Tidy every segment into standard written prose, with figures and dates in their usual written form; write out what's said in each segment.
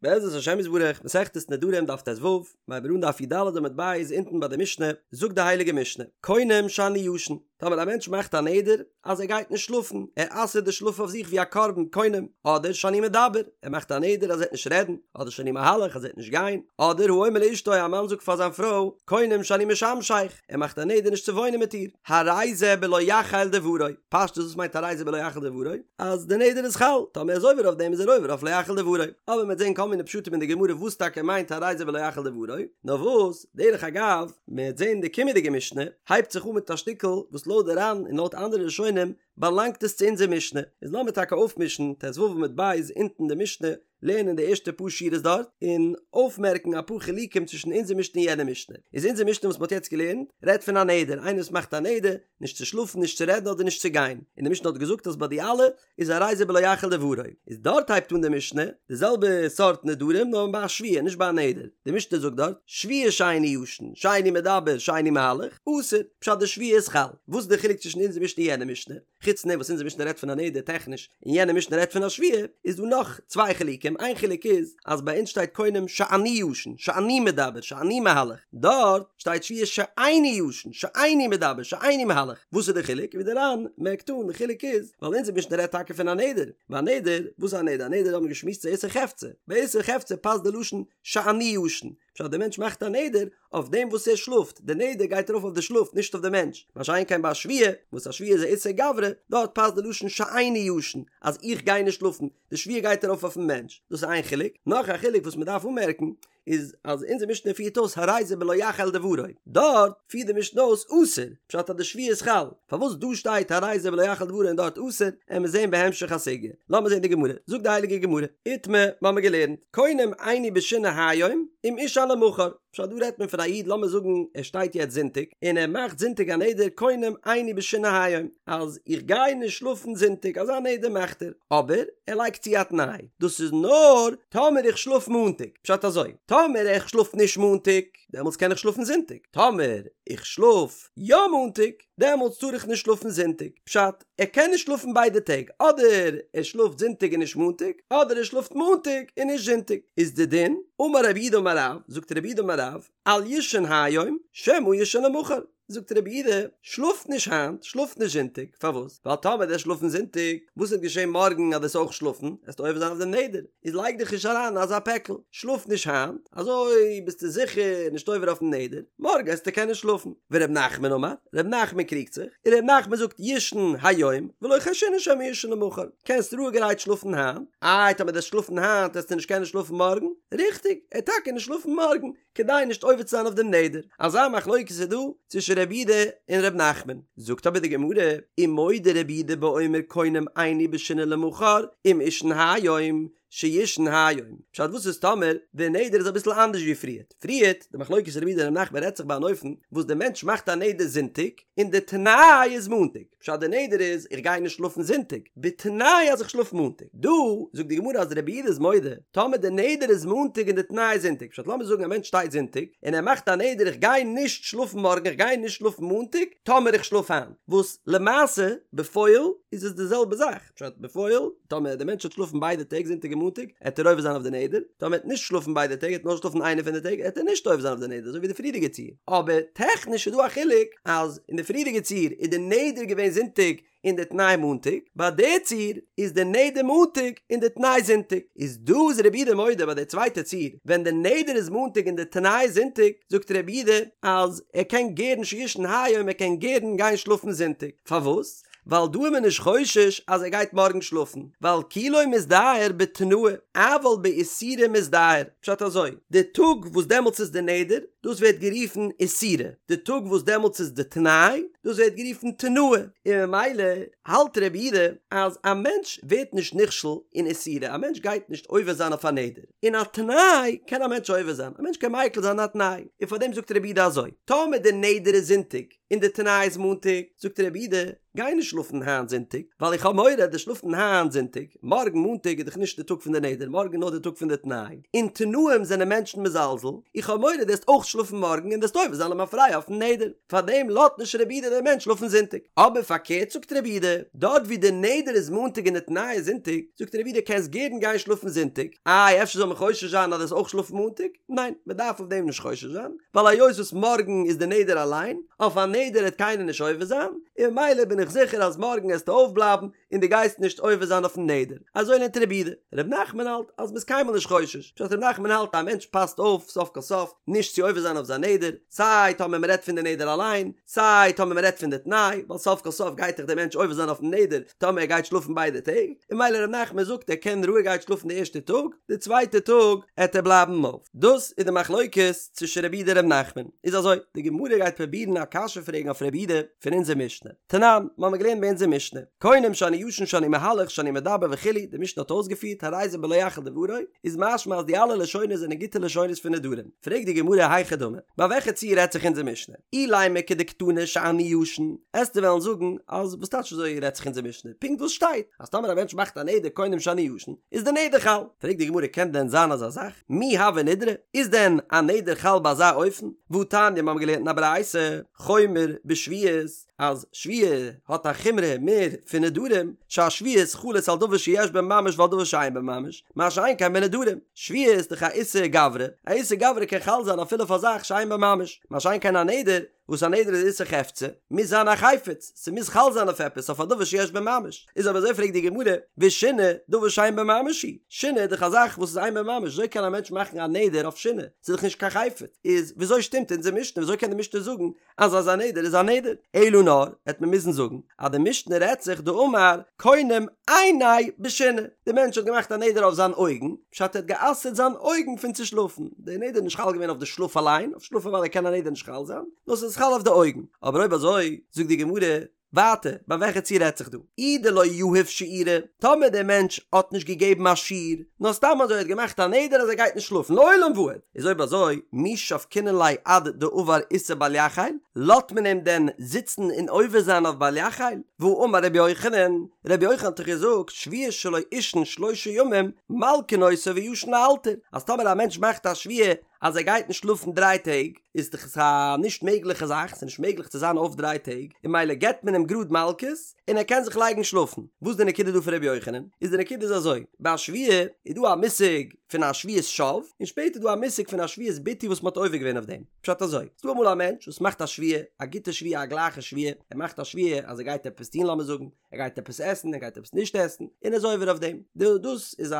בעזרת השם יתברך, מסכת נדרים דף ט"ו, מ'הייבט אן דף י"ד עמוד ב' אונטן ביי די משנה, זאגט די הייליגע משנה, קונם שאני ישן, טאמער א מענטש מאכט א נדר אז ער גייט נישט שלאפן, ער אסר'ט די שלאף אויף זיך ווי א קרבן, קונם, אדער שאני מדבר, ער מאכט א נדר אז ער וועט נישט רעדן, אדער שאני מהלך אז ער וועט נישט גיין, אדער האומר לאשתו א מאן זאגט פאר זיין פרוי, קונם שאני משמשך, ער מאכט א נדר נישט צו וואוינען מיט איר, הרי זה בלא יחל דברו, פשטות וואס מיינט הרי זה בלא יחל דברו? אז די נדר איז חל, טאמער ער איז עובר אויף דעם איז ער עובר אויף לא יחל דברו, אבער מ'וועט זען כל מיני פשטים אין די גמרא וואס טאקע מיינט הרי זה בלא יחל דברו, נאר וואס, דרך אגב, מ'וועט זען די קומענדיגע משנה הייבט זיך אן מיט א שטיקל וואס לויט די ר"ן און לויט אנדערע ראשונים באלאנגט עס צו אונזער משנה, איז לאמיר טאקע אויפמישן ט"ו עמוד ב' אונטן די משנה, לערנען די ערשטע פאר שורות דארט, און אויפמערקן אפאר חילוקים צווישן אונזער משנה און יענע משנה. איז אונזער משנה וואס מ'האט יעצט געלערנט, רעדט פון א נדר, איינער וואס מאכט א נדר, נישט צו שלאפן, נישט צו רעדן אדער נישט צו גיין. און די משנה האט געזאגט אז ביי די אלע איז הרי זה בלא יחל דברו. איז דארט הייבט אן די משנה, די זעלבע סארט נדרים נאר ביי א שבועה נישט ביי א נדר. די משנה זאגט דארט, שבועה שאיני ישן, שאיני מדבר, שאיני מהלך, אסור, פשט די שבועה איז חל. וואס איז די חילוק צווישן אונזער משנה און יענע משנה? חוץ פון דעם וואס אונזער משנה רעדט פון א נדר טעכניש און יענע משנה רעדט פון א שבועה, איז דא נאך צוויי חילוקים, איין חילוק איז אז ביי אונז שטייט קונם שאני ישן, שאני מדבר, שאני מהלך, דארט שטייט שבועה שאיני ישן, שאיני מדבר, שאיני מהלך, וואס איז די חילוק? ווי דער ר"ן מערקט אן, די חילוק איז ווייל אונזער משנה רעדט טאקע פון א נדר, ביי א נדר, וואס איז א נדר? א נדר האט מען געשמועסט ס'איז איסור חפצא, ביי איסור חפצא פאסט די לשון שאני ישן, פשט דער מענטש מאכט א נדר אויף דעם וואס ער שלאפט, די נדר גייט ארויף אויף די שלאף נישט אויף די מענטש, מה שאין כן ביי א שבועה, וואס א שבועה איז א איסור גברא, דארט פאסט די לשון שאיני ישן, אז איך גיי נישט שלאפן, די שבועה גייט ארויף אויפן מענטש, דאס איז איין חילוק, נאך א חילוק וואס מען דארף אנמערקן, איז אז אונזער משנה פירט אויס הרי זה בלא יחל דברו, דארט פירט די משנה אויס אסור, פשט אז די שבועה איז חל, פארוואס דא שטייט הרי זה בלא יחל דברו און דארט אסור, עמיר זעהן בהמשך הסוגיא. לאמיר זעהן די גמרא, זאגט די הייליגע גמרא, איתמר, מ'האמיר געלערנט, קונם איני בשינה היום, אם אישן למחר. פשט דא רעדט מען פון א איד לאמיר זאגן ער שטייט יעצט זונטאג, און ער מאכט זונטאג א נדר קונם איני בשינה היום, אז איך גיי נישט שלאפן זונטאג, אזא נדר מאכט ער, אבער ער לייגט צו א תנאי, דאס איז נאר טאמער איך שלאף מאנטאג, פשט אזוי, טאמער איך שלאף נישט מאנטאג, דעמאלטס קען איך שלאפן זונטאג, טאמער איך שלאף יא מאנטאג, דעמאלטס טאר איך נישט שלאפן זונטאג, פשט, ער קען נישט שלאפן ביידע טעג, אדער ער שלאפט זונטאג און נישט מאנטאג, אדער ער שלאפט מאנטאג און נישט זונטאג, איז די דין, אמר רב יהודה אמר רב, זאגט רב יהודה אמר רב, אל יישן היום, שמא יישן למחר, זאגט רב יהודה, שלאף נישט היינט, שלאף נישט זונטאג, פארוואס? ווייל טאמער וועסט שלאפן זונטאג, וואס וועט געשען מארגן אז וועסט אויך שלאפן, וועסטו עובר זיין אויף דעם נדר, איז לייג דיך נישט אריין אין אזא פעקל, שלאף נישט היינט, אזוי ביסטו זיכער נישט עובר אויפן נדר, מארגן וועסטו קענען שלאפן. ור' נחמן אמר, ר' נחמן קריגט זיך, און ר' נחמן זאגט יישן היום, ולא חיישינן שמא יישן למחר, קענסט רואיגערהייט שלאפן היינט, איי טאמער דו וועסט שלאפן היינט וועסטו נישט קענען שלאפן מארגן, ריכטיג, ער וועט טאקע נישט שלאפן מארגן, כדי נישט עובר צו זיין אויף דעם נדר. אזא מחלוקת איז דא צווישן רבי יהודה און ר' נחמן. זאגט אבער די גמרא, ומודה רבי יהודה באומר קונם איני בשינה למחר, אם אישן היום, שיישן היום. פשט וואס איז טאמער די נדר איז אביסל אנדערש ווי פריערט? פריערט, די מחלוקת רבי יהודה און ר' נחמן רעדט זיך ביי אן אופן וואס די מענטש מאכט א נדר זונטאג, און די תנאי איז מאנטאג. פשט די נדר איז איך גיי נישט שלאפן זונטאג, בתנאי אז איך שלאף מאנטאג. דא זאגט די גמרא אז רבי יהודה איז מודה, טאמער די נדר איז מאנטאג און די תנאי איז זונטאג, פשט לאמיר זאגן א מענטש שטייט זונטאג און ער מאכט א נדר איך גיי נישט שלאפן מארגן איך גיי נישט שלאפן מאנטאג טאמער איך שלאף היינט, וואס למעשה בפועל איז עס די זעלבע זאך, פשט בפועל טאמער די מענטש וועט שלאפן ביידע טעג זונטאג און מאנטאג עט ער עובר זיין אויף די נדר, טאמער ער וועט נישט שלאפן ביידע טעג ער וועט נאר שלאפן איינע פון די טעג עט ער נישט עובר זיין אויף די נדר אזוי ווי די פריערדיגע ציור, אבער טעכניש איז דא א חילוק אז אין די פריערדיגע ציור איז די נדר געווען זונטאג און די תנאי מאנטאג, ביי די ציור איז די נדר מאנטאג און די תנאי זונטאג, איז דא איז רבי יהודה מודה ביי די צווייטע ציור ווען די נדר איז מאנטאג און די תנאי איז זונטאג, זאגט רבי יהודה אז ער קען גערן שיישן היום ער קען גערן גיין שלאפן זונטאג, פארוואס? ווייל דא איז מען נישט חושש אז ער גייט מארגן שלאפן, ווייל כי לא מזדהר בתנאה, אבל באיסורא מזדהר, פשט אזוי, די טאג וואס דעמאלטס איז די נדר, דאס ווערט גערופן איסורא, די טאג וואס דעמאלטס איז די תנאי, דאס ווערט גערופן תנאה, און ממילא האלט רבי יהודה אז א מענטש ווערט נישט נכשל אין איסורא, א מענטש גייט נישט עובר זיין אויף א נדר, אין א תנאי קען א מענטש עובר זיין, א מענטש קען מיקל זיין א תנאי, און פארדעם זאגט רבי יהודה אזוי, טאמער די נדר איז זונטאג, און די תנאי איז מאנטאג, זאגט רבי יהודה, גיי נישט שלאפן היינט זונטאג, ווייל איך האב מורא אז דו'סט שלאפן היינט זונטאג, מארגן מאנטאג איז דאך נישט די טאג פון די נדר, מארגן איז נאר די טאג פון די תנאי, אין תנאים זענען מענטשן מזלזל, איך האב מורא דו וועסט אויך שלאפן. שלאפן מארגן און וועסט עובר זיין למפרע אויפן נדר, פארדעם לאזט נישט רבי יהודה דעם מענטש שלאפן זונטאג. אבער פארקערט זאגט רבי יהודה, דארט ווי די נדר איז מאנטאג און די תנאי איז זונטאג, זאגט רבי יהודה קענסט גערן גיין שלאפן זונטאג, איי אפשר זאל מען חושש זיין אז דו וועסט אויך שלאפן מאנטאג? ניין, מען דארף אויף דעם נישט חושש זיין, ווייל היות וואס מארגן איז די נדר אליין, אויף א נדר העט קיינער נישט עובר זיין, און ממילא בין איך זיכער אז מארגן העסטו אויפבלייבן און דו גייסט נישט עובר זיין אויפן נדר. אזוי לערנט רבי יהודה. ר' נחמן האלט אז מ'איז קיינמאל נישט חושש. פשט ר' נחמן האלט א מענטש פאסט אויף סוף כל סוף נישט צו עובר זיין אויף זיין נדר, סיי טאמער מ'רעדט פון די נדר אליין, סיי טאמער מ'רעדט פון די תנאי, ווייל סוף כל סוף גייט דאך דער מענטש עובר זיין אויפן נדר טאמער ער גייט שלאפן ביידע טעג, און ממילא ר' נחמן זאגט ער קען רואיגערהייט שלאפן די ערשטע טאג, די צווייטע טאג עט ער בלייבן אויף. דאס איז די מחלוקת צווישן רבי יהודה און ר' נחמן. איז אזוי, די גמרא גייט פרובירן א קשיא פרעגן אויף רבי יהודה פון אונזער משנה. תנן, מ'האמיר געלערנט ביי אונזער משנה, קונם שאני ישן שאני מהלך שאני מדבר וכו', די משנה האט אויסגעפירט הרי זה בלא יחל דברו, איז משמע אז די אלע לשונות זענען גוטע לשונות פון נדרים. פרעגט די גמרא היכי דמי, ביי וועלכע ציור רעדט זיך אונזער משנה? אילימא כדקתני שאני ישן, עסטו וועלן זאגן אז וואס טייטש אזוי רעדט זיך אונזער משנה? פונקט וואס שטייט אז טאמער א מענטש מאכט א נדר קונם שאני ישן איז די נדר חל. פרעגט די גמרא קען דען זיין אזא זאך? מי הוי נדרא? איז דען א נדר חל ביי אזא אופן? והתניא מיר האבן געלערנט אין א ברייתא חומר בשבועות אז שבועה האט א חומרא מער פון נדרים, שהשבועות חלות על דבר שיש בו ממש ועל דבר שאין בו ממש, מה שאין כן בנדרים, שבועה איז דאך א איסור גברא, א איסור גברא קען חל זיין אפילו אויף א זאך שאין בו ממש, מה שאין כן א נדר, וואס א נדר איז איסור חפצא, מוז זיין א חפץ, ס'מוז חל זיין אויף עפעס, אויף א דבר שיש בו ממש, איז אויב אזוי פרעגט די גמרא, ושינה, דבר שאין בו ממש היא, שינה איז דאך א זאך וואס איז אין בו ממש, וויאזוי קען א מענטש מאכן א נדר אויף שינה, ס'איז דאך נישט קיין חפץ, איז וויאזוי שטימט אונזער משנה, וויאזוי קען די משנה זאגן אז אזא נדר איז א נדר, אלא נאר, העט מען מוזן זאגן אז די משנה רעדט זיך דאמר קונם עיני בשינה, די מענטש האט געמאכט א נדר אויף זיין אויגן, פשט ער האט גע'אסר'ט זיין אויגן פון צו שלאפן, די נדר איז נישט חל געווען אויף די שלאף אליין, אויף שלאף אוודאי קען א נדר נישט חל זיין, נאר ס'איז חל אויף די אויגן, אבער אויב אזוי, זאגט די גמרא, ווייטער, ביי וועלכע ציור רעדט זיך דא? אי דלא יהיב שיעורא, טאמער דער מענטש האט נישט געגעבן א שיעור, נאר סתם אזוי האט געמאכט א נדר אז ער גייט נישט שלאפן לעולם ועד, איז אויב אזוי, מי שבקינן ליה עד דעבר איסור בל יחל, לאזט מען אים דען זיצן און עובר זיין אויף בל יחל? והאמר רבי יוחנן, רבי יוחנן האט דאך געזאגט, שבועה שלא אישן שלושה ימים, מלקין אותו וישן לאלתר, אז טאמער א מענטש מאכט א שבועה אז ער גייט נישט שלאפן דריי טעג, איז דאך עס א נישט מעגליכע זאך, ס'איז נישט מעגליך צו זיין אויף דריי טעג, און ממילא געבט מען אים גראד מלקות, און ער קען זיך לייגן שלאפן. וואס איז די נקודה דא פון ר' יוחנן? איז די נקודה איז אזוי, ביי א שבועה איז דא א מושג פון א שבועת שוא, און שפעטער איז דא א מושג פון א שבועת ביטוי וואס מ'האט עובר געווען אויף דעם. פשט אזוי, ס'איז דא אמאל א מענטש וואס מאכט א שבועה, א גוטע שבועה, א גלייכע שבועה, ער מאכט א שבועה אז ער גייט עפעס טון לאמיר זאגן, ער גייט עפעס עסן, ער גייט עפעס נישט עסן, און ער איז עובר אויף דעם. דאס איז א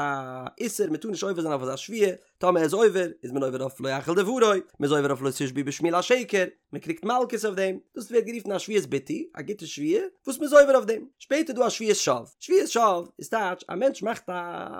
איסור, מ'טאר נישט עובר זיין אויף אזא שבועה, טאמער ער איז עובר, איז מען עובר אויף לא יחל דברו, מען איז עובר אויף לא תשבעו בשמי לשקר, מען קריגט מלקות אויף דעם, דאס ווערט גערופן א שבועת ביטוי, א גוטע שבועה, וואס מען איז עובר אויף דעם. שפעטער איז דא א שבועת שוא. שבועת שוא איז טייטש, א מענטש מאכט א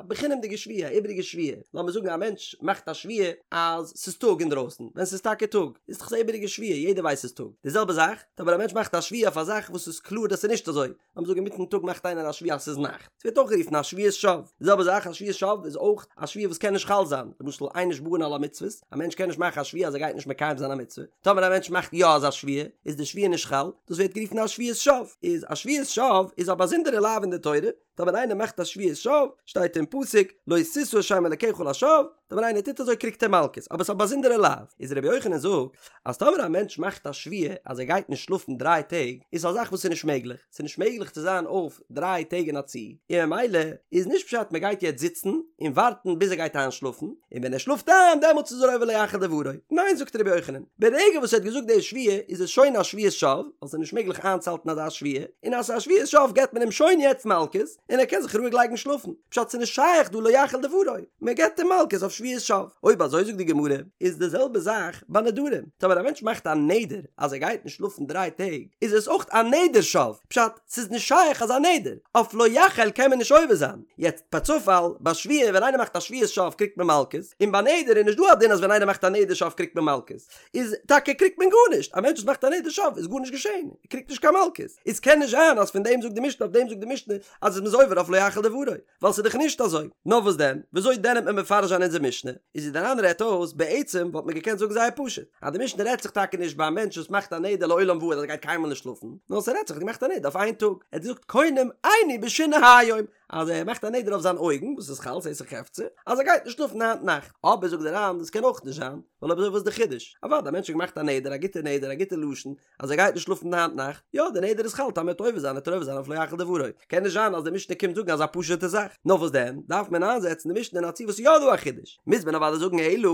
בחינם'דיגע שבועה, א איבעריגע שבועה. לאמיר זאגן א מענטש מאכט א שבועה אז ס'איז טאג אינדרויסן, ווען ס'איז טאקע טאג, איז דאך עס א איבעריגע שבועה, יעדער ווייסט ס'איז טאג. די זעלבע זאך, טאמער א מענטש מאכט א שבועה אויף א זאך וואס איז קלאר אז ס'איז נישט אזוי, לאמיר זאגן אינמיטן טאג מאכט איינער א שבועה אז ס'איז נאכט, ס'ווערט אויך גערופן א שבועת שוא. די זעלבע זאך א שבועת שוא איז אויך א שבועה וואס קען נישט חל זיין, למשל אין נשבעין על המצוות, א מענטש קען נישט מאכן א שבועה אז ער גייט נישט מקיים זיין א מצוה, טאמער א מענטש מאכט יא אזא שבועה, איז די שבועה נישט חל, דאס ווערט גערופן א שבועת שוא. איז א שבועת שוא איז א באזונדערע לאו אין די תורה, טאמער איינער מאכט א שבועת שוא, שטייט אין פסוק, לא תשא את שם אלקיך לשווא, טאמער איינער טוט אזוי קריגט ער מלקות, אבער ס'איז א באזונדערע לאו. איז רבי יוחנן זאגט, אז טאמער א מענטש מאכט א שבועה אז ער גייט נישט שלאפן דריי טעג, איז א זאך וואס איז נישט מעגליך, ס'איז נישט מעגליך צו זיין אויף דריי טעג אין א צי, און ממילא איז נישט פשט מען גייט יעצט זיצן און ווארטן ביז ער גייט איינשלאפן, און ווען ער שלאפט איין דעמאלטס איז ער עובר לא יחל דברו, ניין זאגט רבי יוחנן, ברגע וואס ער האט געזאגט די שבועה איז עס שוין א שבועת שוא, ווייל ס'איז נישט מעגליך איינצוהאלטן אזא שבועה, און אז ס'איז א שבועת שוא געבט מען אים שוין יעצט מלקות, און ער קען זיך רואיג לייגן שלאפן, פשט ס'איז נישט שייך דא לא יחל דברו, מען געבט אים מלקות אויף שבועת שוא. אויב אזוי זאגט די גמרא, איז די זעלבע זאך ביי נדרים, טאמער א מענטש מאכט א נדר אז ער גייט נישט שלאפן דריי טעג, איז עס אויך א נדר שוא, פשט, ס'איז נישט שייך אזא נדר, אויף לא יחל קען מען נישט עובר זיין, יעצט פערצופאל, ביי שבועה ווען איינער מאכט א שבועת שוא קריגט מען מלקות, און ביי נדר איז נישט דא א דין אז ווען איינער מאכט א נדר שוא קריגט מען מלקות, איז טאקע קריגט מען גארנישט, א מענטש וואס מאכט א נדר שוא איז גארנישט געשען, ער קריגט נישט קיין מלקות, איז קען נישט זיין אז פון דעם זאגט די משנה אויף דעם זאגט די משנה אז מ'איז עובר אויף לא יחל דברו, ווייל ס'איז דאך נישט אזוי, נאר וואס דען, וויאזוי דען וועט מען מפרש זיין אונזער משנה, איז ווי דער ר"ן רעדט אויס, בעצם וואלט מען געקענט זאגן זייער פשוט, אז די משנה רעדט זיך טאקע נישט ביי א מענטש וואס מאכט א נדר לעולם ועד אז ער גייט קיינמאל נישט שלאפן, נאר ס'רעדט זיך ער האט געמאכט א נדר אויף איין טאג, ער האט געזאגט קונם עיני בשינה היום, אז ער מאכט א נדר אויף זיין אויגן, וואס איז חל, ס'איז איסור חפצא, אז ער גייט נישט שלאפן היינט נאכט. אבער זאגט דער ר"ן, דאס קען אויך נישט זיין, ווייל אויב אזוי וואס איז די חידוש? אוודאי, א מענטש האט געמאכט א נדר, א גוטע נדר, א גוטע לשון, אז ער גייט נישט שלאפן היינט נאכט, יא, די נדר איז חל, טאמער ער וועט עובר זיין, וועט ער עובר זיין אויף לא יחל דברו. קען נישט זיין אז די משנה קומט זאגן אזא פשוט'ע זאך. נאר וואס דען, דארף מען איינזעצן די משנה אין א ציור וואס איז יא דא א חידוש. מוז מען אוודאי זאגן אלא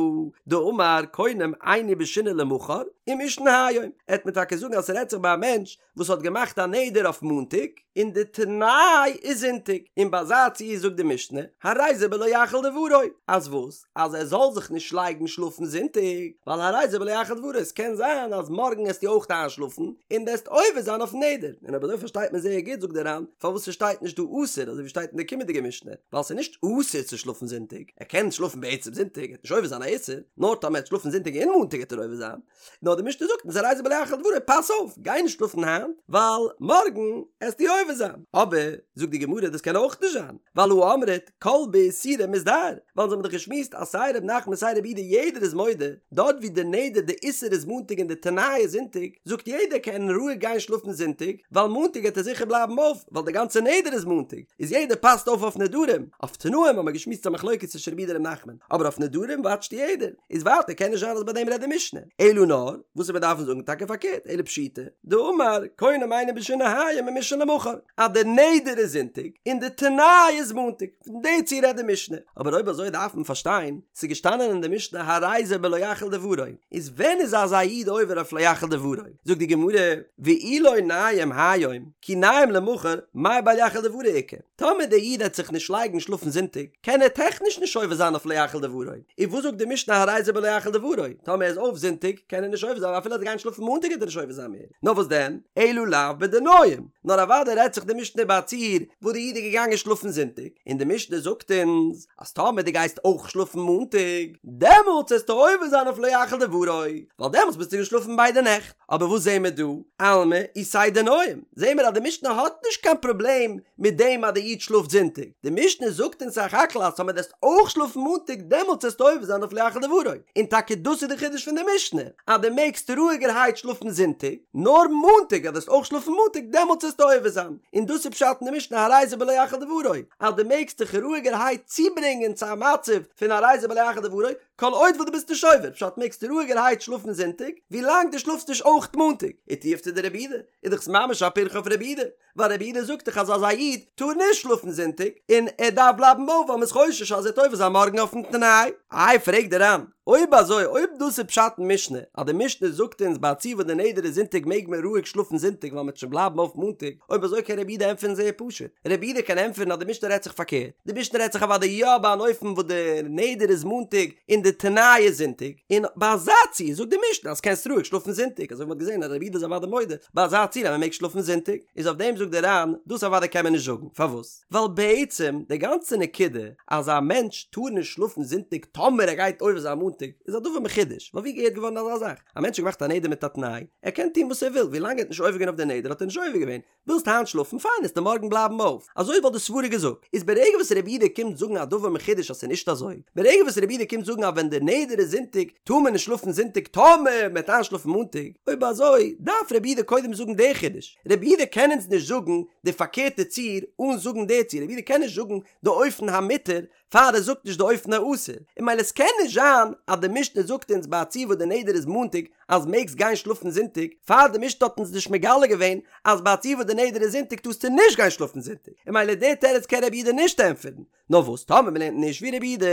דאמר קונם איני בשינה למחר ומישן היום. עט מען טאקע זאגן אז ס'רעדט זיך ביי א מענטש וואס האט געמאכט א נדר אויף מאנטאג, און די תנאי איז זונטאג, און ביי אזא ציור זאגט די משנה, הרי זה בלא יחל דברו, אז וואס? אז ער זאל זיך נישט לייגן שלאפן זונטאג, ווייל הרי זה בלא יחל דברו, עס קען זיין אז מארגן עסטו אויך איינשלאפן, און דו עסט עובר זיין אויפן נדר, און אויב אזוי פארשטייט מען זייער גוט זאגט דער ר"ן, פארוואס ס'שטייט נישט דא אסור אזוי ווי שטייט אין די קומענדיגע משנה, ווייל ס'איז נישט אסור צו שלאפן זונטאג, ער קען שלאפן בעצם זונטאג, ער וועט נישט עובר זיין א איסור, נאר טאמער ער וועט שלאפן זונטאג און מאנטאג וועט ער עובר זיין. נאר די משנה זאגט אונז הרי זה בלא יחל דברו פאס אויף גיי נישט שלאפן היינט ווייל מארגן עסטו עובר זיין אבער זאגט די גמרא דאס קען אויך נישט זיין ווייל הא אמרת כל באיסורא מזדהר ווייל אונז האבן דאך געשמועסט אז סיי ר' נחמן סיי רבי יהודה יעדער איז מודה דארט ווי די נדר די איסור איז מאנטאג און די תנאי איז זונטאג זאגט יעדער קען רואיג גיין שלאפן זונטאג ווייל מאנטאג העט ער זיכער בלייבן אויף ווייל די גאנצע נדר איז מאנטאג איז יעדער פאסט אויף אויף נדרים אויף תנאים האבן מיר געשמועסט א מחלוקת צווישן רבי יהודה און ר' נחמן אבער אויף נדרים וואטשט יעדער. איז ווייטער קען נישט זיין אז ביי דעם רעדט די משנה, אלא נאר וואס מיר דארפן זאגן טאקע פארקערט, אלא פשיטא דאמר קונם איני בשינה היום ומישן למחר, אז די נדר איז זונטאג און די תנאי איז מאנטאג, פון די ציור רעדט די משנה, אבער אויב אזוי דארף מען פארשטיין, ס'איז געשטאנען אין די משנה הרי זה בלא יחל דברו, איז ווען איז אזא איד עובר אויף לא יחל דברו? זאגט די גמרא, ואי לא ניים היום, כי ניים למחר, מאי בל יחל דברו איכא? טאמער דער איד העט זיך נישט לייגן שלאפן זונטאג, קען ער טעכניש נישט עובר זיין אויף לא יחל דברו. און וואס זאגט די משנה הרי זה בלא יחל דברו? טאמער ער איז אויף זונטאג, קען ער נישט עובר זיין, אפילו ער וועט גיין שלאפן מאנטאג וועט ער נישט עובר זיין מער. נאר וואס דען? אלא לאו בדניים. נאר אוודאי רעדט זיך די משנה ביי א ציור וואס די איד איז געגאנגען שלאפן זונטאג, און די משנה זאגט אונז אז טאמער דו גייסט אויך שלאפן מאנטאג, דעמאלטס וועסטו עובר זיין אויף לא יחל דברו, ווייל דעמאלטס ביסטו געשלאפן ביידע נעכט. אבער וואס זעהן מיר דא? אלמא איתיה דניים, זעהן מיר אז די משנה האט נישט קיין פראבלעם מיט דעם אז די איד שלאפט זונטאג, די משנה זאגט אונז סך הכל אז טאמער דו וועסט אויך שלאפן מאנטאג דעמאלטס וועסטו עובר זיין אויף לא יחל דברו, און טאקע דאס איז די חידוש פון די משנה, אז דו מעגסט רואיגערהייט שלאפן זונטאג, נאר מאנטאג אז דו וועסט אויך שלאפן מאנטאג דעמאלטס וועסטו עובר זיין, און דאס איז פשט אין די משנה הרי זה בלא יחל דברו, אז דו מעגסט דיך רואיגערהייט צוברענגען צו א מצב פון הרי זה בלא יחל דברו, כל עוד וואס דו ביסט נישט עובר, פשט מעגסטו רואיגערהייט שלאפן זונטאג, ווי לאנג דו שלאפסט נישט אויך מאנטאג, ותיובתא דרבי יהודה, איז דאך ממש א פירכא אויף רבי יהודה, ווייל רבי יהודה זאגט דאך אז אזא איד טאר נישט שלאפן זונטאג, און ער דארף בלייבן אויף ווייל מ'איז חושש אז ער וועט עובר זיין מארגן אויפן תנאי. איי פרעגט דער ר"ן, אויב אזוי אויב דאס איז פשט אין משנה, אז די משנה זאגט אונז ביי א ציור וואס די נדר איז זונטאג מעג מען רואיג שלאפן זונטאג ווייל מ'וועט שוין בלייבן אויף מאנטאג, אויב אזוי קען רבי יהודה ענטפערן זייער פשוט, רבי יהודה קען ענטפערן אז די משנה רעדט זיך פארקערט, די משנה רעדט זיך אוודאי יא ביי אן אופן וואס די נדר איז מאנטאג און די תנאי איז זונטאג, און ביי אזא ציור זאגט די משנה אז קענסט רואיג שלאפן זונטאג, אזוי ווי מ'האט געזען אז רבי יהודה איז אוודאי מודה ביי אזא ציור אז מ'מעג שלאפן זונטאג, איז אויף דעם זאגט דער ר"ן, דאס אוודאי קען מען נישט זאגן, פארוואס? ווייל בעצם די גאנצע נקודה אז א מענטש טאר נישט שלאפן זונטאג טאמער ער גייט עובר זיין מאנטאג איז א דבר מחודש, ווייל ווי געהערט געווארן אזא זאך? א מענטש האט געמאכט א נדר מיט א תנאי, ער קען טון וואס ער וויל, ווילאנג ער האט נישט עובר געווען אויף די נדר האט ער נישט עובר געווען, ווילסט היינט שלאפן, פיין, עסטו מארגן בלייבן אויף. אזוי וואלט די סברה געזאגט. איז ברגע וואס רבי יהודה קומט זאגן א דבר מחודש אז ס'איז נישט אזוי, ברגע וואס רבי יהודה קומט זאגן אז ווען די נדר איז זונטאג טאר מען נישט שלאפן זונטאג טאמער מ'וועט איינשלאפן מאנטאג, אויב אזוי דארף רבי יהודה קודם זאגן די חידוש. רבי יהודה קען אונז נישט זאגן די פארקערטע ציור אן זאגן די ציור, רבי יהודה קען נישט זאגן די אופן המותר פאר ער זאגט נישט די אופן האסור, און ממילא עס קען נישט זיין אז די משנה זאגט אונז ביי א ציור וואס די נדר איז מאנטאג אז מעגסט גיין שלאפן זונטאג, פאר די משנה האט אונז נישט מגלה געווען אז ביי א ציור וואס די נדר איז זונטאג טארסטו נישט גיין שלאפן זונטאג, און ממילא די תירוץ קען רבי יהודה נישט ענטפערן. נאר וואס טאמער מען לערנט נישט ווי רבי יהודה,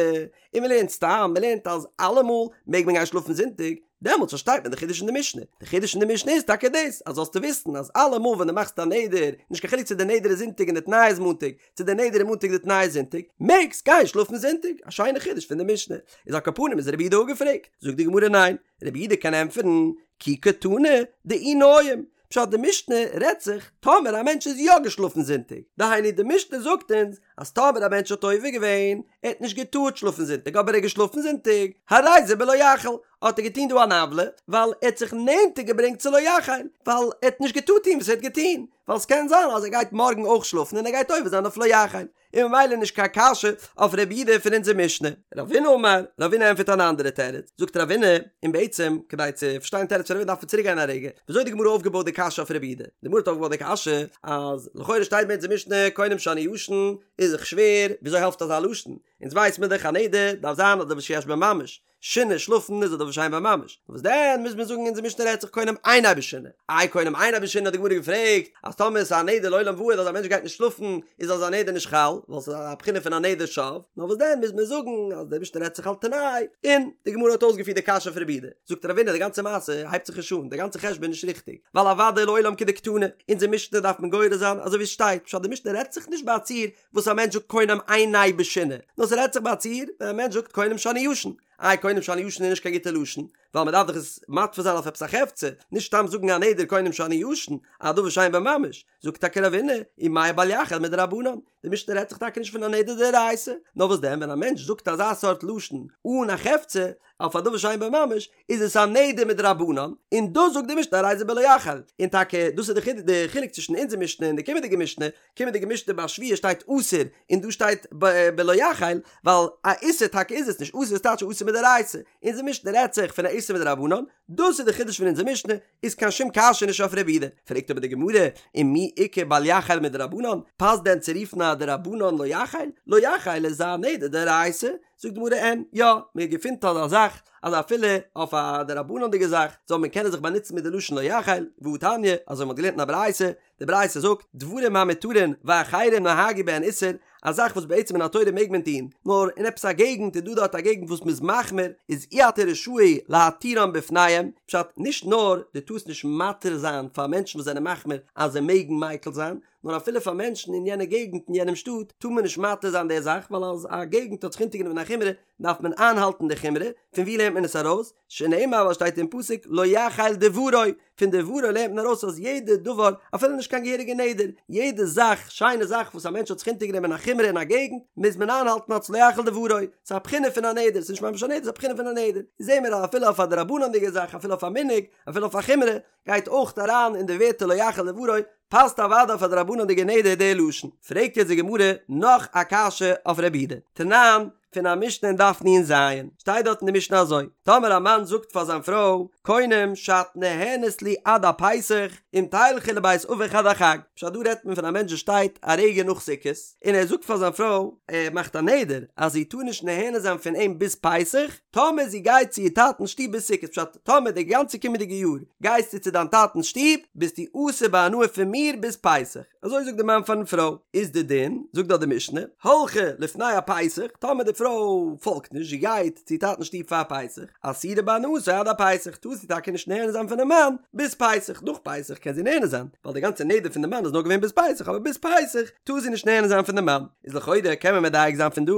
און מען לערנט סתם, מען לערנט אז אלעמאל מעג מען גיין שלאפן זונטאג, דעמאלטס פארשטייט מען די חידוש אין די משנה, די חידוש אין די משנה איז טאקע דאס, אז זאלסטו וויסן אז אלעמאל ווען דו מאכסט א נדר, נישט קיין חילוק צו די נדר איז זונטאג און די תנאי איז מאנטאג, צו די נדר איז מאנטאג די תנאי איז זונטאג, מעגסט גיין שלאפן זונטאג, א שיינע חידוש פון די משנה. איז על כל פנים איז רבי יהודה אפגעפרעגט? זאגט די גמרא ניין, רבי יהודה קען ענטפערן, כי קתני דאי ניים, פשט די משנה רעדט זיך טאמער א מענטש איז יא געשלאפן זונטאג, דהיינו די משנה זאגט אונז אז טאמער א מענטש האט עובר געווען, ער האט נישט געטארט שלאפן זונטאג אבער ער איז געשלאפן זונטאג, הרי זה בלא יחל, האט ער געטון דא אן עוולה, ווייל ער האט זיך נענטער געברענגט צו לא יחל, ווייל ער האט נישט געטארט טון וואס ער האט געטון, ווייל ס'קען זיין אז ער גייט מארגן אויך שלאפן און ער גייט עובר זיין אויף לא יחל, און ממילא נישט קיין קשיא אויף רבי יהודה פון אונזער משנה. רבינא אמר, רבינא ענטפערט אן אנדערע תירוץ, זאגט רבינא, און בעצם, כדי צו פארשטיין תירוץ פון רבינא דארף מען צוריק גיין א רגע, וויאזוי האט די גמרא אויפגעבויט די קשיא אויף רבי יהודה? די גמרא האט אויפגעבויט די קשיא, אז לכאורה שטייט ביי אונזער משנה קונם שאני ישן, איז. איז דאך שווער, וויאזוי העלפט אזא לשון? אונז ווייס מיר דאך א נדר דארף זיין א דבר שיש בו ממש, שינה, שלאפן איז א דבר שאין בו ממש, וואס דען מוז מען זאגן אונזער משנה רעדט זיך קונם אינו בשינה, איי קונם אינו בשינה האט די גמרא געפרעגט אז טאמער עס איז א נדר לעולם ועד אז א מענטש גייט נישט שלאפן איז אזא נדר נישט חל ווייל ס'איז א בחינה פון א נדר שוא, נאר וואס דען מוז מען זאגן אז די משנה רעדט זיך על תנאי, און די גמרא האט אויסגעפירט די קשיא פון רב יהודה, זאגט רבינא די גאנצע מעשה הייבט זיך נישט אן, די גאנצע חשבון איז נישט ריכטיג, ווייל אוודאי לעולם כדקתני, אונזער משנה דארף מען גורס זיין אזוי ווי עס שטייט, פשט די משנה רעדט זיך נישט ביי א ציור וואס א מענטש זאגט קונם עיני בשינה, נאר ס'רעדט זיך ביי א ציור ווען א מענטש זאגט קונם שאני ישן, איי קונם שאני ישן איז נישט קיין גוטע לשון, ווייל מ'דארף דאך עס מתפיס זיין אויף עפעס א חפצא, נישט סתם זאגן א נדר קונם שאני ישן, א דבר שאין בו ממש, זאגט טאקע רבינא, ומאי בל יחל מדרבנן, די משנה רעדט זיך טאקע נישט פון א נדר דאורייתא, נאר וואס דען ווען א מענטש זאגט אזא סארט לשון אן א חפצא, אויף א דבר שאין בו ממש, איז עס א נדר מדרבנן, און דאס זאגט די משנה הרי זה בלא יחל, און טאקע דאס איז די חילוק צווישן אונזער משנה און די קומענדיגע משנה, קומענדיגע משנה ביי שבועה שטייט אסור און דא שטייט בלא יחל, ווייל א איסור טאקע איז עס נישט, אסור איז טייטש א איסור מדאורייתא, אונזער משנה רעדט זיך פון א איסור מדרבנן, דאס איז די חידוש פון אונזער משנה, איז קיין שום קשיא נישט אויף רב יהודה, פרעגט אבער די גמרא, ומי איכא בל יחל מדרבנן, פאסט דען צו רופן א דרבנן לא יחל? לא יחל איז א נדר דאורייתא, זאגט די גמרא אין, יא, מען געפינט אזא זאך, אז אפילו אויף א דרבנן'דיגע זאך זאל מען קענען זיך באנוצן מיט די לשון לא יחל, והתניא, אזוי מען האט געלערנט אין א ברייתא, די ברייתא זאגט, דברים המותרין ואחרים נהגו בהן איסור, א זאך וואס בעצם מן התורה מעג מען טון, נאר אין עפעס א געגנט איז דא דארט א געגנט וואס מ'איז מחמיר, איז אי אתה רשאי להתירם בפניהם, פשט, נישט נאר דו טארסט נישט מתיר זיין פאר מענטשן וואס זענען מחמיר אז זיי מעגן מיקל זיין, נאר אפילו פאר מענטשן אין יענע געגנט אין יענעם שטאט טאר מען נישט מתיר זיין די זאך, ווייל אז א געגנט האט זיך אונטערגענומען א חומרא דארף מען איינהאלטן די חומרא, פון וואו לערנט מען עס ארויס? שנאמר ווייל שטייט אין פסוק לא יחל דברו, פון דברו לערנט מען ארויס אז יעדע דבר, אפילו נישט קיין געהעריגע נדר, יעדע זאך, שיינע זאך וואס א מענטש האט זיך אונטערגענומען א חומרא אין א געגנט, מוז מען איינהאלטן אלס לא יחל דברו, ס'איז א בחינה פון א נדר, ס'איז נישט ממש א נדר, ס'איז א בחינה פון א נדר. זעהן מיר אז אפילו אויף א דרבנן'דיגע זאך, אפילו אויף א מנהג, אפילו אויף א חומרא, גייט אויך אריין אין די ווערטער לא יחל דברו, פאסט אוודאי אויף א דרבנן'דיגע נדר די לשון. פרעגט יעצט די גמרא נאך א קשיא אויף רב יהודה. תנן, פון א משנה אין דף נ"ז, שטייט דארט אין די משנה אזוי, טאמער א מאן זאגט פאר זיין פרוי, קונם שאת נהנית לי עד הפסח, אם תלכי לבית אביך עד החג, פשט דא רעדט מען פון א מענטש וואס שטייט א רגע נאך סוכות, און ער זאגט פאר זיין פרוי, ער מאכט א נדר אז זי טאר נישט נהנה זיין פון אים ביז פסח, טאמער זי גייט צו איר טאטנ'ס שטוב ביז סוכות, פשט, טאמער די גאנצע קומענדיגע יאר גייסטו צו דיין טאטנ'ס שטוב, ביסטו אסור בהנאה פון מיר ביז פסח. אזוי זאגט די מאן פארן פרוי, איז די דין, זאגט דארט די משנה, הלכה לפני הפסח, טאמער די פרוי פאלגט נישט, זי גייט צו טאטנ'ס שטוב פאר פסח, אסורה בהנאתו עד הפסח, טאר זי טאקע נישט נהנה זיין פונעם מאן ביז פסח, נאך פסח קען זי נהנה זיין, ווייל די גאנצע נדר פון די מאן איז נאר געווען ביז פסח, אבער ביז פסח טאר זי נישט נהנה זיין פון די מאן, איז לכאורה קען מען מדייק זיין פון דא,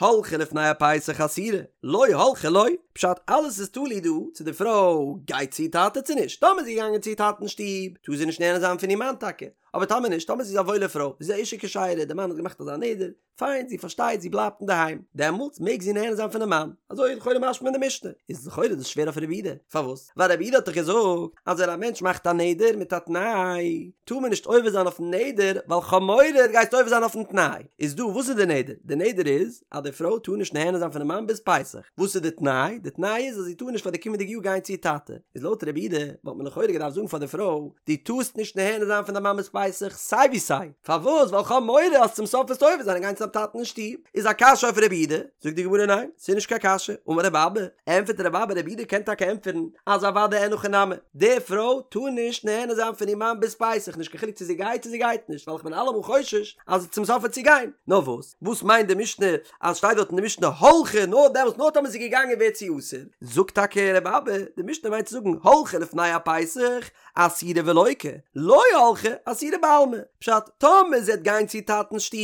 הלכה לפני הפסח אסורה, לא הלכה לא, פשט אלעס איז תלוי דא צו די פרוי גייט צו איר טאטע צו נישט, טאמער איז זי געגאנגען צו איר טאטנ'ס שטוב טאר זי נישט נהנה זיין פון איר מאן טאקע, אבער טאמער נישט, טאמער זי איז א וואוילע פרוי, זי איז א אשה כשרה, די מאן האט געמאכט אזא נדר, פיין, זי פארשטייט, זי בלייבט אינדערהיים, דעמאלטס מעג זי נהנה זיין פונעם מאן, אזוי איז לכאורה משמע אין די משנה, איז לכאורה דאס שווער אויף רב יהודה, פארוואס? ווייל רב יהודה האט דאך געזאגט אז ווען א מענטש מאכט א נדר מיט א תנאי, טאר מען נישט עובר זיין אויפן נדר, ווייל כ'האב מורא דו גייסט עובר זיין אויפן תנאי, איז דא וואס איז די נדר? די נדר איז אז די פרוי טאר נישט נהנה זיין פונעם מאן ביז פסח, וואס איז די תנאי? די תנאי איז אז זי טאר נישט פאר די קומענדיגע יאר גיין צו איר טאטע, איז לויט רב יהודה וואלט מען לכאורה געדארפט זאגן פאר די פרוי, דו טארסט נישט נהנה זיין פון דיין מאן ביז פסח סיי ווי סיי, פארוואס? ווייל כ'האב מורא אז צום סוף וועסטו עובר זיין און גיין צו דיין טאטן אין שטוב, איז א קשיא אויף רב יהודה? זאגט די גמרא ניין, ס'איז נישט קיין קשיא, אמר רב אבא, ענטפערט רב אבא רב יהודה קען טאקע ענטפערן אז אוודאי אין הכי נמי, די פרוי טאר נישט נהנה זיין פון איר מאן ביז פסח נישט קיין חילוק צו זי גייט צו זי גייט נישט ווייל איך בין אלעמאל חושש אז צום סוף וועט זי גיין, נאר וואס? וואס מיינט די משנה אז שטייט דארט אין די משנה הלכה נאר דעמאלטס נאר טאמער זי איז געגאנגען ווערט זי אסור, זאגט טאקע רב אבא די משנה מיינט צו זאגן הלכה לפני הפסח אסורה ולוקה, לא הלכה אסורה בעלמא, פשט טאמער זי וועט גיין צו איר טאטנ'ס שטוב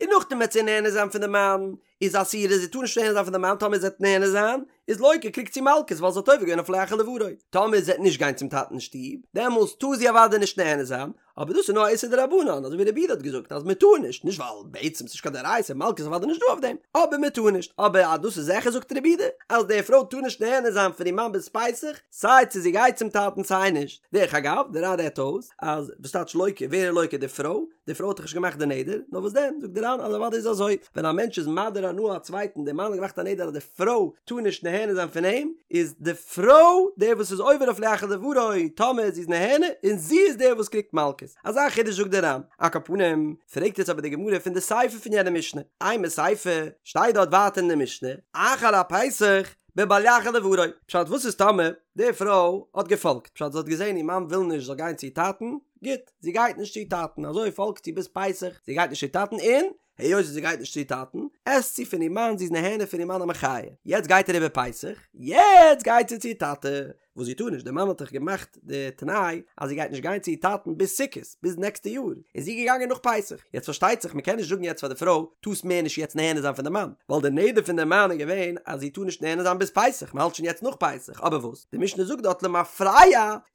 און נאכדעם וועט זי נהנה זיין פון די מאן איז אסורה זי טאר נישט נהנה זיין פון די מאן טאמער זי וועט נהנה זיין איז לוקה קריגט זי מלקות ווייל זי האט עובר געווען אויף לא יחל דברו טאמער זי וועט נישט גיין צום טאטנ'ס שטוב דעמאלס טאר זי אוודאי נישט נהנה זיין אבער דאס איז נאר א איסור דרבנן אזוי ווי רב יהודה האט געזאגט אז מען טאר נישט נישט ווייל בעצם ס'נישט קיין דאורייתא מלקות איז אוודאי נישט דא אויף דעם אבער מען טאר נישט אבער אז דאס איז זיכער זאגט רב יהודה אז די פרוי טאר נישט נהנה זיין פון איר מאן ביז פסח סיי צו זי גייט צום טאטן סיי נישט דרך אגב דער ר"ן רעדט אויס אז וואס טייטש לוקה ווער איז לוקה די פרוי די פרוי האט דאך נישט געמאכט די נדר, נאר וואס דען, זאגט דער ר"ן אז אוודאי איז אזוי, ווען א מענטש איז מדיר הנאה א צווייטן, דער מאן האט געמאכט א נדר אז די פרוי טאר נישט נהנה זיין פון אים, איז די פרוי דער וואס איז עובר אויף לא יחל דברו טאמער זי איז נהנה, און זי איז דער וואס קריגט מלקות. מלקות. אזא חידוש זאגט דער ר"ן. על כל פנים, פרעגט יעצט אבער די גמרא פון די סיפא פון יענע משנה, אימא סיפא, שטייט דארט ווייטער אין די משנה, אחר הפסח, בבל יחל דברו. פשט וואס איז טאמער די פרוי האט געפאלגט, פשט זי האט געזען איר מאן וויל נישט זאל גיין צו איר טאטן, גוט, זי גייט נישט צו איר טאטן, אזוי פאלגט זי ביז פסח, זי גייט נישט צו איר טאטן און היות זי גייט נישט צו איר טאטן, עסט זי פון איר מאן, זי איז נהנה פון איר מאן א מחיה. יעצט גייט אריבער פסח, יעצט גייט זי צו איר טאטע, וואס זי טאר נישט, דער מאן האט דאך געמאכט די תנאי אז זי גייט נישט גיין צו איר טאטן ביז סוכות, ביז נעקסטע יאר, איז זי געגאנגען נאך פסח. יעצט פארשטייט זיך, מען קען נישט זאגן יעצט פאר די פרוי, טארסט מער נישט יעצט נהנה זיין פון די מאן, ווייל די נדר פון די מאן איז געווען אז זי טאר נישט נהנה זיין ביז פסח, מען האלט שוין יעצט נאך פסח, אבער וואס? די משנה זאגט דארט למפרע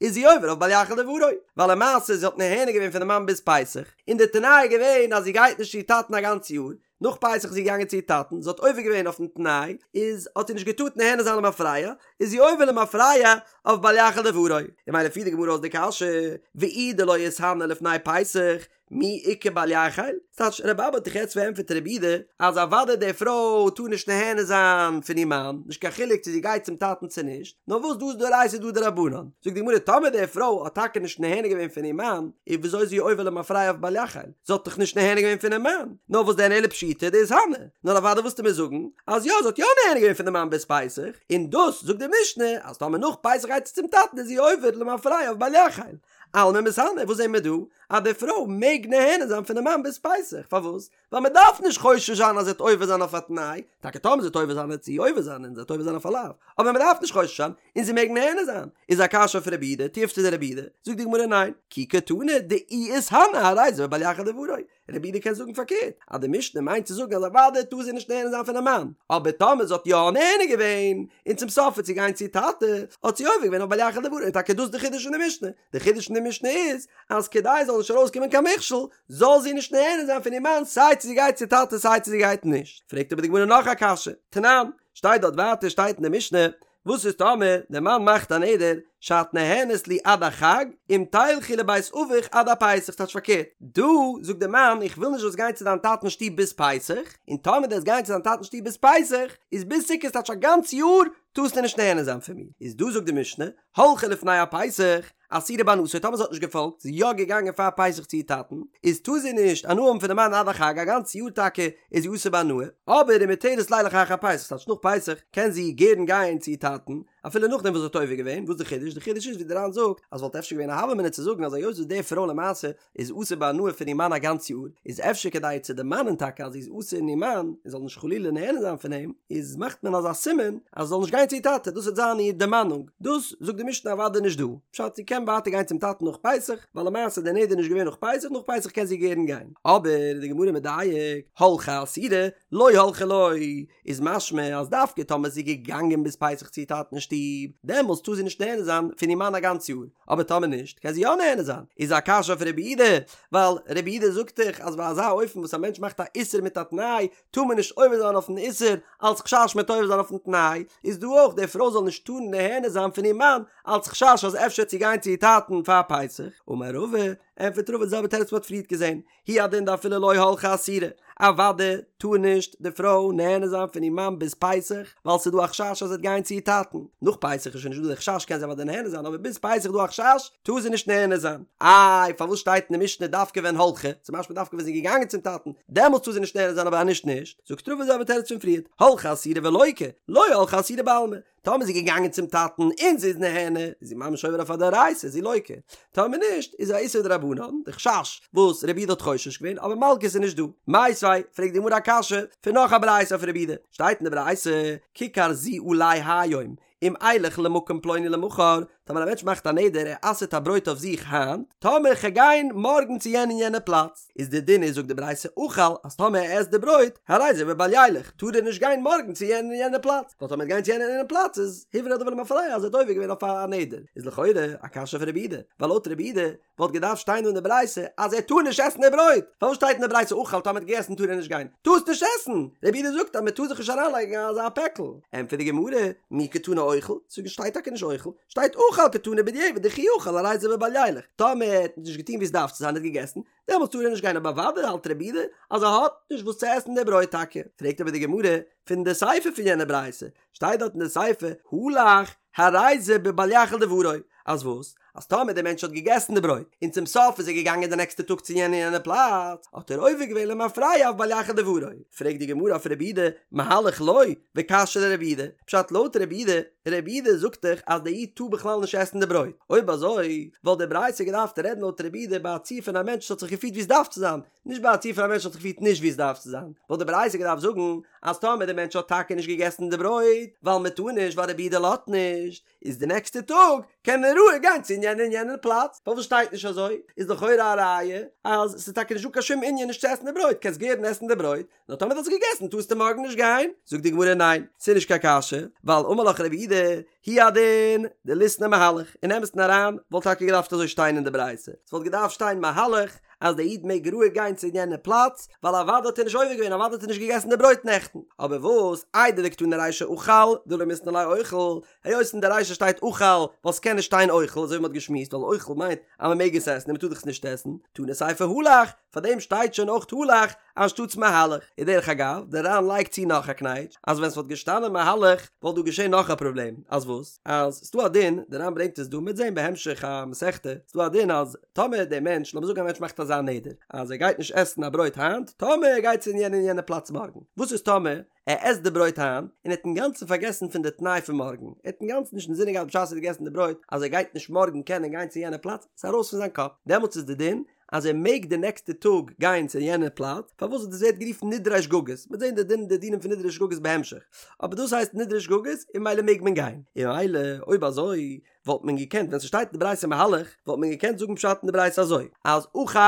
איז זי עובר אויף בל יחל דברו, ווייל למעשה זי האט נהנה געווען פון די מאן ביז פסח, און די תנאי איז געווען אז זי גייט נישט צו איר טאטן א גאנץ יאר, נאך פסח איז זי געגאנגען צו איר טאטן, זי האט עובר געווען אויפן תנאי, איז האט זי נישט געטארט נהנה זיין למפרע, איז זי עובר למפרע אויף בל יחל דברו. און ממילא פירט די גמרא אויס די קשיא, ואי דלא איתהני לפני פסח, מי איכא בל יחל? ס'טייטש רבי אבא האט דאך יעצט פארענטפערט רבי יהודה אז אוודאי די פרוי טאר נישט נהנה זיין פון איר מאן, נישט קיין חילוק צו זי גייט צום טאטן צו נישט, נאר וואס דא איז דאורייתא דא דרבנן. זאגט די גמרא טאמער די פרוי האט טאקע נישט נהנה געווען פון איר מאן, איז וויאזוי איז זי עובר למפרע אויף בל יחל? זי האט דאך נישט נהנה געווען פונעם מאן, נאר וואס דען אלא פשיטא דאיתהני, נאר אוודאי וועסטו מיר זאגן אז יא זי האט יא נהנה געווען פון די מאן ביז פסח, און דאס זאגט די משנה אז טאמער נאך פסח גייט זי צום טאטן איז זי עובר למפרע אויף בל יחל. אלמא מיתהני, וואס זעהן מיר דא? אז די פרוי מעג נהנה זיין פונעם מאן ביז פסח, פארוואס? ווייל מען דארף נישט חושש זיין אז זי וועט עובר זיין אויף א תנאי, טאקע טאמער זי וועט עובר זיין וועט זי עובר זיין און זי וועט עובר זיין אויף א לאו, אבער מען דארף נישט חושש זיין און זי מעג נהנה זיין, איז א קשיא אויף רבי יהודה, תיובתא דרבי יהודה, זאגט די גמרא ניין, כי קתני דאי איתהני הרי זה בבל יחל דברו, רבי יהודה קען זאגן פארקערט, אז די משנה מיינט צו זאגן אז אוודאי טאר זי נישט נהנה זיין פונעם מאן, אבער טאמער זי האט יא נהנה געווען, און צום סוף וועט זי גיין צו איר טאטע, האט זי עובר געווען אויף בל יחל דברו, און טאקע דאס איז די חידוש פון די משנה, די חידוש פון די משנה איז, אז כדי עס זאל נישט ארויסקומען קיין מכשול, זאל זי נישט נהנה זיין פון איר מאן סיי צו זי גייט צו טאטע סיי צו זי גייט נישט. פרעגט אבער די גמרא נאך א קשיא, תנן, שטייט דארט ווייטער שטייט אין די משנה, וואס איז טאמער דער מאן מאכט א נדר שאת נהנית לי עד החג אם תלכי לבית אביך עד הפסח טייטש פארקערט דא זאגט דער מאן איך וויל נישט זאלסט גיין צו דיין טאטענס שטוב ביז פסח און טאמער דו וועסט גיין צו דיין טאטענס שטוב ביז פסח איז ביז סוכות טייטש א גאנץ יאר טארסטו נישט נהנה זיין פון מיר איז דא זאגט די משנה הלכה לפני הפסח אסורה בהנאתו, טאמער זי האט נישט געפאלגט, זי איז יא געגאנגען פאר פסח צו איר טאטן, איז טאר זי נישט הנאה האבן פונעם מאן עד החג, א גאנץ יאר טאקע איז זי אסור בהנאה, אבער ומותרת לילך אחר פסח, ס'טייטש נאך פסח קען זי גערן גיין צו איר טאטן, אפילו נאכדעם וואס זי האט עובר געווען, וואס איז די חידוש? די חידוש איז ווי די ר"ן זאגט, אז וואלט אפשר געווען א הוה אמינא צו זאגן אז היות וואס די פרוי למעשה איז אסור בהנאה פון איר מאן א גאנץ יאר, איז אפשר כדי איר צו דערמאנען טאקע אז זי איז אסור אין איר מאן, און זאל נישט חלילה נהנה זיין פון אים, איז מאכט מען אזא סימן אז זי זאל נישט גיין צו איר טאטע, דאס וועט זיין איר דערמאנונג, דאס זאגט די משנה אוודאי נישט דא, פשט זי קען ווייטער גיין צום טאטן נאך פסח, ווייל למעשה איז דער נדר נישט געווען נאך פסח, נאך פסח קען זי גערן גיין. אבער איז די גמרא מדייק, הלכה אסורה, לא הלכה לא, איז משמע אז דווקא טאמער זי איז געגאנגען ביז פסח צו איר טאטן אין שטוב, דעמאלטס טאר זי נישט נהנה זיין פון איר מאן א גאנץ יאר, אבער טאמער נישט קען זי יא נהנה זיין, איז א קשיא אויף רבי יהודה, ווייל רבי יהודה זאגט דאך אז ביי אזא אופן וואס א מענטש מאכט א איסור מיט א תנאי, טאר מען נישט עובר זיין אויפן איסור אלץ חשש מ'וועט עובר זיין אויפן תנאי, איז דא אויך די פרוי זאל נישט טארן נהנה זיין פון איר מאן אלץ חשש אז אפשר וועט זי גיין צו איר טאטן פאר פסח, אמר רבא, ענטפערט רבא די זעלבע תירוץ וואס מ'האט פריערט געזען, הוא הדין דאפילו לא הלכה אסורה, אוודאי טאר נישט די פרוי נהנה זיין פון איר מאן ביז פסח, ווייל ס'איז דא א חשש אז זי וועט גיין צו איר טאטן, נאך פסח איז שוין נישט דא די חשש קען זי אוודאי נהנה זיין, אבער ביז פסח איז דא א חשש, טאר זי נישט נהנה זיין. איי פארוואס שטייט אין די משנה דווקא ווען הלכה, ס'איז משמע דווקא ווען זי איז געגאנגען צום טאטן, דעמאלטס טאר זי נישט נהנה זיין אבער אז נישט נישט, זאגט רבא די זעלבע תירוץ פון פריערט, הלכה אסורה ולוקה, לא הלכה אסורה בעלמא, טאמער איז זי געגאנגען צום טאטן און זי איז נהנה, איז זי ממש עובר אויף א דאורייתא, איז זי לוקה. טאמער נישט, איז א איסור דרבנן, די חשש וואס רבי יהודה האט חושש געווען, אבער מלקות איז נישט דא. מיתיבי, פרעגט די גמרא א קשיא פון נאך א ברייתא אויף רבי יהודה, שטייט אין די ברייתא, ככר זו עלי היום, אם אלך למקום פלוני למחר, טאמער א מענטש מאכט א נדר ער אסר'ט א ברויט אויף זיך היינט, טאמער כ'גיי גיין מארגן צו יענע און יענע פלאץ, איז די דין איז זאגט די ברייתא אכל אז טאמער ער עסט די ברויט, הרי זה בבל ילך, טאר ער נישט גיין מארגן צו יענע און יענע פלאץ, ווייל טאמער ער וועט גיין צו יענע און יענע פלאץ איז הוברר הדבר למפרע אז ער האט עובר געווען אויף א נדר, איז לכאורה א קשיא פון רבי יהודה, ווייל לויט רבי יהודה וואלט געדארפט שטיין דא אין די ברייתא אז ער טאר נישט עסן די ברויט, פארוואס שטייט אין די ברייתא אכל טאמער ער האט געגעסן טאר ער נישט גיין? טארסט נישט עסן! רבי יהודה זאגט אז מען טאר זיך נישט אריינלייגן אזא פעקל. ענטפערט די גמרא, מי קתני אוכל, ס'שטייט טאקע נישט אוכל, שטייט אכל קתני בדיעבד דכי אכל הרי זה בבל ילך, טאמער ער האט נישט געטון ווי עס דארף צו זיין ער האט געגעסן, דעמאלטס טאר ער נישט גיין אבער אוודאי האלט רבי יהודה אז ער האט נישט וואס צו עסן די ברויט טאקע. פרעגט אבער די גמרא פון די סיפא פון יענע ברייתא, שטייט דארט אין די סיפא הלך הרי זה בבל יחל דברו, אז וואס? אז טאמער דער מענטש האט געגעסן די ברויט, און צום סוף איז ער געגאנגען די נעקסטע טאג צו יענע יענע פלאץ, האט ער עובר געווען למפרע אויף בל יחל דברו. פרעגט די גמרא אויף רבי יהודה, מהלך לא, וקשיא לרבי יהודה, פשט לויט רבי יהודה, רבי יהודה זאגט דאך אז דער איד טאר בכלל נישט עסן די ברויט, אויב אזוי וואלט די ברייתא געדארפט רעדן לויט רבי יהודה ביי א ציור פון א מענטש וואס האט זיך געפירט ווי עס דארף צו זיין, נישט ביי א ציור פון א מענטש וואס האט זיך געפירט נישט ווי עס דארף צו זיין, וואלט די ברייתא געדארפט זאגן אז טאמער דער מענטש האט טאקע נישט געגעסן די ברויט ווייל מען טאר נישט ווייל רבי יהודה לאזט נישט, איז די נעקסטע טאג קען ער רואיג גיין צו יענע און יענע פלאץ, פארוואס שטייט נישט אזוי? איז לכאורה א ראיה אז ס'איז טאקע נישטא קיין שום ענין נישט צו עסן די ברויט, קענסט גערן עסן די ברויט, נאר טאמער דו האסט געגעסן טארסטו מארגן נישט גיין. זאגט די גמרא ניין, ס'איז נישט קיין קשיא, ווייל אמר לך רבי יהודה, הוא הדין דליתני מהלך, אין אמת'ן אריין וואלט טאקע געדארפט אזוי שטיין אין די ברייתא, ס'וואלט געדארפט שטיין מהלך אז דער איד מעג רואיג גיין צו יענע פלאץ, ווייל אוודאי האט ער נישט עובר געווען, אוודאי האט ער נישט געגעסן די ברויט נעכטן. אבער וואס, איידי דקתני רישא אכל, דלא מיתני ליה אוכל, היות אין די רישא שטייט אכל, ווייל ס'קען נישט שטיין אוכל, אזוי ווי מ'האט געשמועסט, ווייל אוכל מיינט אז מ'מעג עס עסן און מ'טאר דאך עס נישט עסן, תנא סיפא הלך, פארדעם שטייט שוין אויך הלך אנשטאטס מהלך. און דרך אגב, דער ר"ן לייגט צו נאך א קנייטש, אז ווען ס'וואלט געשטאנען מהלך וואלט דא געשען נאך א פראבלעם, אז וואס? אז ס'דא א דין, דער ר"ן ברענגט עס דא, מ'וועט זען בהמשך המסכתא, ס'דא א דין אז טאמער דער מענטש, לאמיר זאגן א מענטש מאכט אזא נדר, אז ער גייט נישט עסן א ברויט היינט, טאמער ער גייט צו אין יענע און יענע פלאץ מארגן, וואס איז טאמער ער עסט די ברויט היינט, און ער האט אינגאנצן פארגעסן פון די תנאי פון מארגן, ער האט אינגאנצן נישט אינזינען געהאט בשעת ער האט געגעסן די ברויט אז ער גייט נישט מארגן קענען גיין צו יענע פלאץ, ס'איז ארויס פון זיין קאפ, דעמאלטס איז די דין אז ער מעג די נעקסטע טאג גיין צו יענע פלאץ, פארוואס דאס ווערט גערופן נדרי שגגות, מ'וועט זען די דין די דינים פון נדרי שגגות בהמשך, אבער דאס הייסט נדרי שגגות און ממילא מעג מען גיין, און ממילא אויב אזוי וואלט מען געקענט ווען ס'שטייט אין די ברייתא מהלך וואלט מען געקענט זאגן פשט אין די ברייתא אזוי אז אכל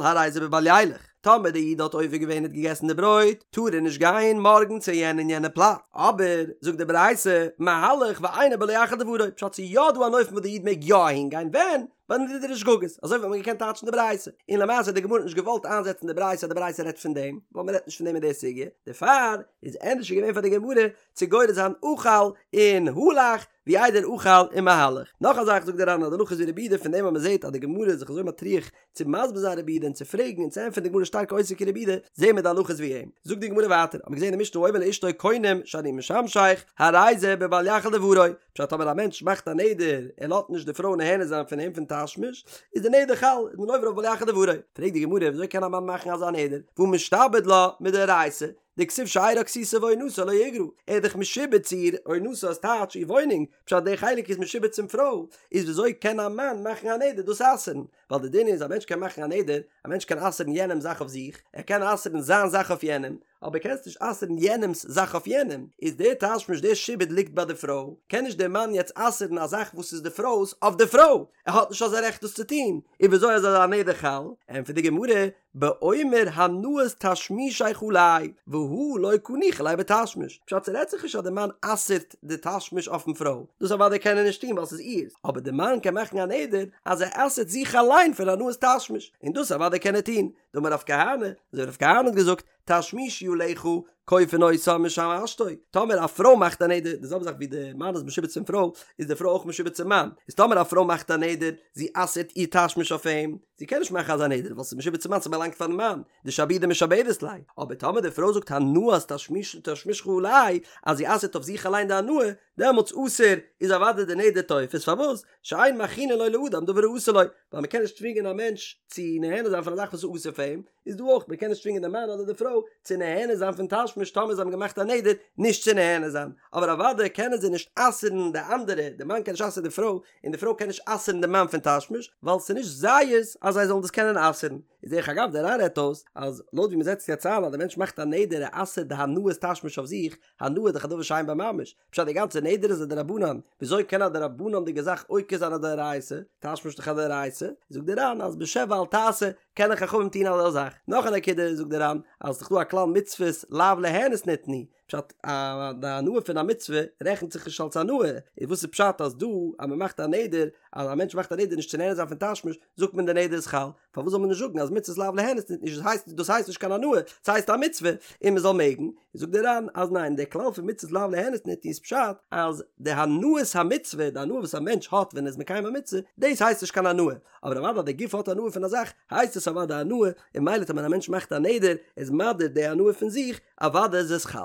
הרי זה בבל ילך, טאמער די איד האט עובר געווען און האט געגעסן די ברויט טאר ער נישט גיין מארגן צו יענע און יענע פלאץ, אבער זאגט די ברייתא מהלך ואינו בלא יחל דברו, פשט ס'איז יא דא אן אופן וואס די איד מעג יא אהין גיין ווען? ביי נדרי שגגות, אזוי וואלט מען געקענט טייטשן די ברייתא, און למעשה האט די גמרא נישט געוואלט איינזעצן די ברייתא אז די ברייתא רעדט פון דעם, ווייל מ'רעדט נישט פון דעם אין די סוגיא, דערפאר איז ענדערש געווען פאר די גמרא צו גורס זיין אכל און הלך, ווי איידער אכל און מהלך. נאך א זאך זאגט דער ר"ן אז די הלכה איז ווי רבי יהודה פון דעם אז מען זעט אז די גמרא איז זיך אזוי מטריח צו מסביר זיין רבי יהודה און צו פרעגן און צו ענטפערן די גמרא שטארק עוסק אין רבי יהודה, זעהן מיר די הלכה איז ווי אים. זאגט די גמרא ווייטער, האט מען געזען אין משנה האומר לאשתו קונם שאני משמשך, הרי זה בבל יחל דברו, פשט טאמער א מענטש מאכט א נדר ער לאזט נישט די פרוי נהנה זיין פון אים פון תשמיש, איז די נדר חל, איז מען עובר אויף בל יחל דברו. פרעגט די גמרא וויאזוי קען א מאן מאכן אזא נדר, והא משתעבד לה מדאורייתא, דכתיב שארה כסותה ועונתה לא יגרע, ער איז דאך משועבד צו איר, עונתה איז טייטש איר וואוינונג, פשט די חלק איז משועבד צום פרוי, איז וויאזוי קען א מאן מאכן א נדר דאס אסר'ן? ווייל די דין איז א מענטש קען מאכן א נדר, א מענטש קען אסר'ן יענעמ'ס זאך אויף זיך, ער קען אסר'ן זיין זאך אויף יענעם, אבער קענסט נישט אסר'ן יענעמ'ס זאך אויף יענעם, איז דער תשמיש דער שעבוד ליגט ביי די פרוי, קען נישט דער מאן יעצט אסר'ן א זאך וואס איז די פרוי'ס אויף די פרוי, ער האט נישט אזא רעכט דאס צו טון, איז וויאזוי איז אזא נדר חל? ענטפערט די גמרא, באומר הנאת תשמישך עלי, והא לא קא ניחא ליה בתשמיש, פשט ס'רעדט זיך נישט אז די מאן אסר'ט די תשמיש אויפן פרוי, דאס אוודאי קען ער נישט טון ווייל ס'איז איר'ס, אבער די מאן קען מאכן א נדר אז ער אסר'ט זיך אליין פון הנאת תשמיש, און דאס אוודאי קען ער טון, דאמר רב כהנא, אזוי ווי רב כהנא האט געזאגט, תשמישי עליך כופין אותה משמשתו, טאמער א פרוי מאכט א נדר, די זעלבע זאך ווי די מאן איז משועבד צום פרוי, איז די פרוי אויך משועבד צום מאן, איז טאמער א פרוי מאכט א נדר, זי אסר'ט איר תשמיש אויף אים, זי קען נישט מאכן אזא נדר ווייל ס'איז משועבד צום מאן ס'באלאנגט פארן מאן, דשעבודי משעבדת ליה, אבער טאמער די פרוי זאגט הנאת תשמיש תשמישך עלי, אז זי אסר'ט אויף זיך אליין די הנאה, דעמאלטס אסור איז אוודאי די נדר תופס, פארוואס? שאין מכרינין לו לאדם דבר האסור לו, ווייל מ'קען נישט צווינגען א מענטש צו נהנה זיין פון א זאך וואס איז אסור פאר אים, איז דא אויך, מ'קען נישט צווינגען די מאן אדער די פרוי צו נהנה זיין פון תשמיש טאמער זיי האבן געמאכט א נדר נישט צו נהנה זיין, אבער אוודאי קענען זיי נישט אסר'ן די אנדערע, די מאן קען נישט אסר'ן די פרוי, און די פרוי קען נישט אסר'ן די מאן פון תשמיש, ווייל ס'איז נישט זייערס אז זיי זאלן דאס קענען אסר'ן. איז דרך אגב דער ר"ן רעדט אויס אז לויט ווי מ'זעצט יעצט איין אז די מענטש מאכט א נדר ער אסר'ט די הנאת תשמיש אויף זיך, הנאה איז דאך א דבר שאין בו ממש, פשט די גאנצע נדר איז א דרבנן, וויאזוי קען א דרבנן'דיגע זאך עוקר זיין א דאורייתא, תשמיש איז דאך א דאורייתא, זאגט דער ר"ן אז בשב ואל תעשה קענען חכמים טון אזא זאך, נאך א נקודה זאגט דער ר"ן אז ס'איז דאך דא א כלל מצוות לאו ליהנות ניתנו, פשט א די הנאה פון א מצוה רעכנט זיך נישט אלס הנאה, איז וואס איז פשט אז דא אז מ'מאכט א נדר אז א מענטש מאכט א נדר נישט צו נהנה זיין פון תשמיש זאגט מען די נדר איז חל, פארוואס זאל מען נישט זאגן אז מצוות לאו ליהנות ניתנו דאס הייסט דאס הייסט נישט קיין הנאה ס'הייסט א מצוה און מען זאל מעגן, זאגט דער ר"ן אז ניין דער כלל פון מצוות לאו ליהנות ניתנו איז פשט אז די הנאת המצוה די הנאה וואס א מענטש האט ווען ער איז מקיים א מצוה דאס הייסט נישט קיין הנאה אבער אוודאי אז די גוף האט הנאה פון א זאך הייסט עס אוודאי הנאה און ממילא טאמער א מענטש מאכט א נדר איז מדיר די הנאה פון זיך אוודאי איז עס חל.